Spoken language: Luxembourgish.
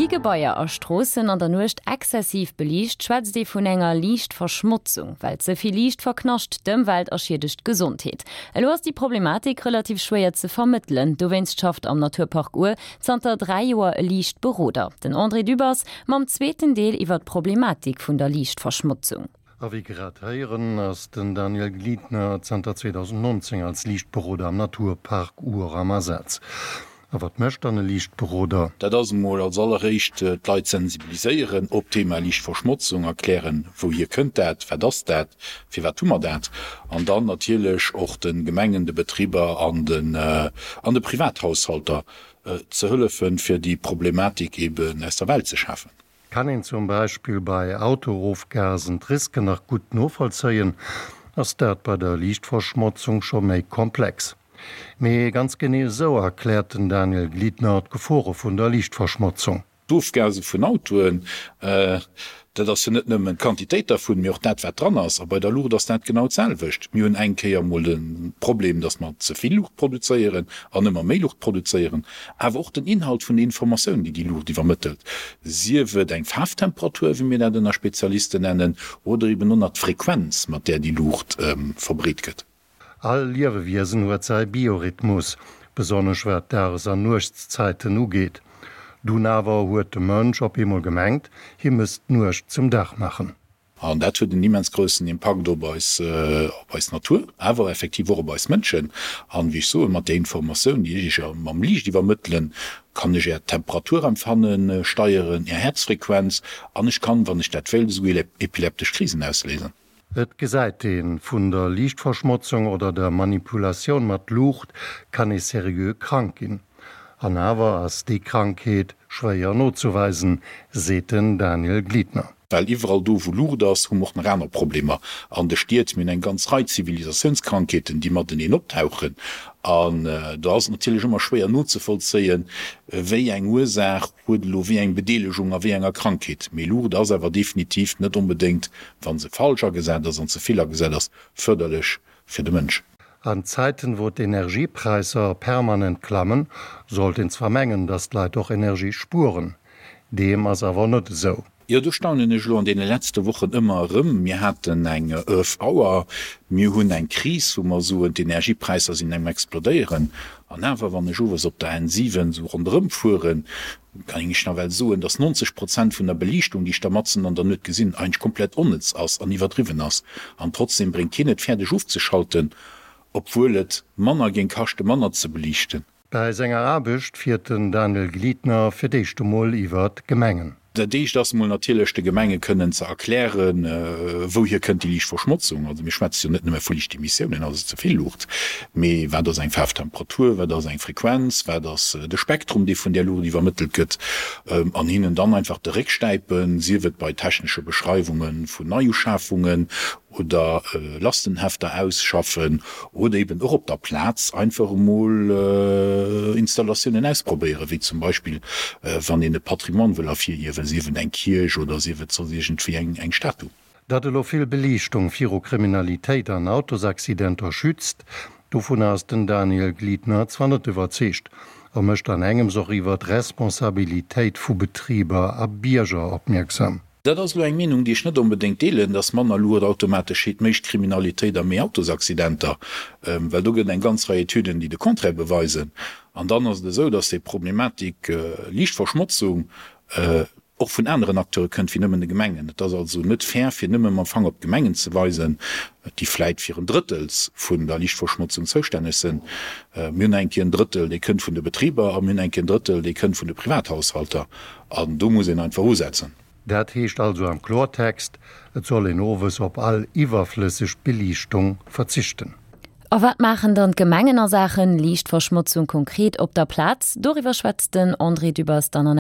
Gi Gebaier a Stroossen an der Nuecht exzessiv beliicht, schwätzt ee vun enger Liichtverschmotzung. Well ze vill Liicht verknascht d'Ëmwelt a schiedegt d'Gesondheet. Elo ass déi Problematik relativ schwéier ze vermëttelen. Dowéinst schafft am Naturpark Our zanter 3 Joer e Liichtberoder, den André Dübbers, mam zweeten Deel iwwer d'Problematik vun der Liichtverschmotzung. A wéi grad héieren, ass den Daniel Gliedner zanter 2019 als Liichtberoder am Naturpark Our am Asaz. A wat mécht dann e Liichtberoder? Dat ass emol als alleréischt d'Leit sensibiliséieren op d'Thema Liichtverschmotzung, erklären, wouhier kënnt dat, wat ass dat, firwat hu mer dat, an dann natierlech och de Gemengen, de Betriber an de Privathaushalter ze hëllefen, fir déi Problematik eben aus der Welt ze schafen. Kann een zum Beispill bei Autoofgasen d'Risken nach gutt novollzéien, ass dat bei der Liichtverschmotzung scho méi komplex. Mee ganz genee esou erkläert den Daniel Gliedner d'Gefore vun der Liichtverschmotzung. D'Ofgase vun Autoen, dat ass jo net nëmmen d'Quantitéit dervun, mee och dat, wat dran ass. A bei der Luucht ass dat genau d'selwecht. Mir hunn eng Kéier emol de Problem, datt mer ze vill Luucht produzéieren an ëmmer méi Luucht produzéieren. Awer och den Inhalt vun der Informatioun, déi déi Luucht iwwermëttelt, sief et eng Faarftemperatur, wéi mir dat ënner Spezialisten nennen, oder eben och nach d'Frequenz, mat där déi Luucht verbreet gëtt. All Liewewiesen huet säi Biorhythmus, besonnesch wat d'Dages an Nuechtszäiten ugeet. Dunn awer huet de Mënsch op eemol gemengt, hie misst d'Nuecht zum Dag maachen. An dat huet en immens groussen Impakt op eis, op eis Natur, awer effektiv och op eis Mënschen. An, wéi ech soen, mat där Informatioun, déi ech Iech mam Liicht iwwermëttelen, kann ech Är Temperaturempfanne steieren, Är Häerzfrequenz, an ech kann, wann ech dat wéilt, esouguer epileptesch Krisen ausléisen. Et gesäit een, vun der Liichtverschmotzung oder der Manipulatioun mat Luucht kann ee seriö krank ginn. An awer ass déi Krankheet schwéier nozeweisen, seet den Daniel Gliedner. Well iwwerall do, wou Luucht ass, hu mer och nach aner Problemer an de Stied. Mir hunn eng ganz Rei Zivilisatiounskrankheeten, déi mateneen optauchen. An do ass et natierlech ëmmer schwéier nozevollzéien, wéi eng Ursaach huet elo wéi eng Bedeelegung a wéi enger Krankheet. Mee Luucht ass awer definitiv net onbedéngt, wa se falsch agesat ass an ze vill agesat ass, fërderlech fir de Mënsch. An Zäiten, wou d'Energiepräisser permanent klammen, sollt een zwar mengen, dass d'Leit och Energie spueren. Deem ass awer net esou. Jo, do staunen ech elo an deene letzte Wochen ëmmer erëm. Mir haten eng Earth Hour, mir hunn eng Kris, wou mer soen, d'Energiepräisser sinn um Explodéieren. An awer, wann ech owes op der N7 esou ronderëm fueren, kann ech nawell soen, dass 90 Prozent vun der Beliichtung, déi ech da matzen an der Nuet gesinn, eigentlech komplett onnëtz ass an iwwerdriwwen ass. An trotzdem bréngt keen et fäerdeg ofzeschalten, obwuel et manner géing kaschte manner ze beliichten. Bäi senger Aarbecht fiert den Daniel Gliedner fir d'éischt emol iwwer d'Gemengen. Dat éischt ass emol natierlech de Gemenge kënnen ze erklären, wouhier kënnt déi Liichtverschmotzung. Also mir schwätze jo net nëmme vu Liichtemissiounen, also ze vill Luucht, mee wat ass eng Faarftemperatur, wat ass eng Frequenz, wat ass de Spektrum, dee vun där Luucht iwwermëttelt gëtt, an hinnen dann einfach de Réck stäipen, sief et bei technesche Beschreiwunge vun Neiuschafungen oder Lastenhefter ausschaffen oder eben och op der Plaz einfach emol Installatiounen ausprobéieren, wéi zum Beispill wann een e Patrimoine wëll ervirhiewen, sief et eng Kierch oder sief et soss iergendwéi eng Statu. Datt elo vill Beliichtung viru Kriminalitéit an Autosaccidenter schützt, dovunner ass den Daniel Gliedner zwar net iwwerzeegt. A mécht an engems och iwwer d'Responsabilitéit vu Betriber a Bierger opmierksam. Dat ass elo eng Meenung, déi ech net onbedéngt deelen, dass manner Luucht automatesch heet méi Kriminalitéit a méi Autosaccidenter, well do gëtt et eng ganz Rei Etüden, déi de Contraire beweisen. An dann ass et esou, dass déi Problematik Liichtverschmotzung och vun aneren Acteure kënnt wéi nëmmen de Gemengen. Et ass also net fair, fir nëmme mam Fanger op d'Gemengen ze weisen, déi vläit fir en Drëttels vun der Liichtverschmotzung zoustänneg sinn. Mir hunn eng Kéier en Drëttel, dee kënnt vun de Betriber, a mir hunn eng Kéier en Drëttel, dee kënnt vun de Privathaushalter. An do muss een einfach usetzen. Dat heescht also am Klortext, et soll een owes op all iwwerflësseg Beliichtung verzichten. A wat maachen dann d'Gemengen a Saachen Liichtverschmotzung konkret op der Plaz? Doriwwer schwätzt den André Dübbers dann an.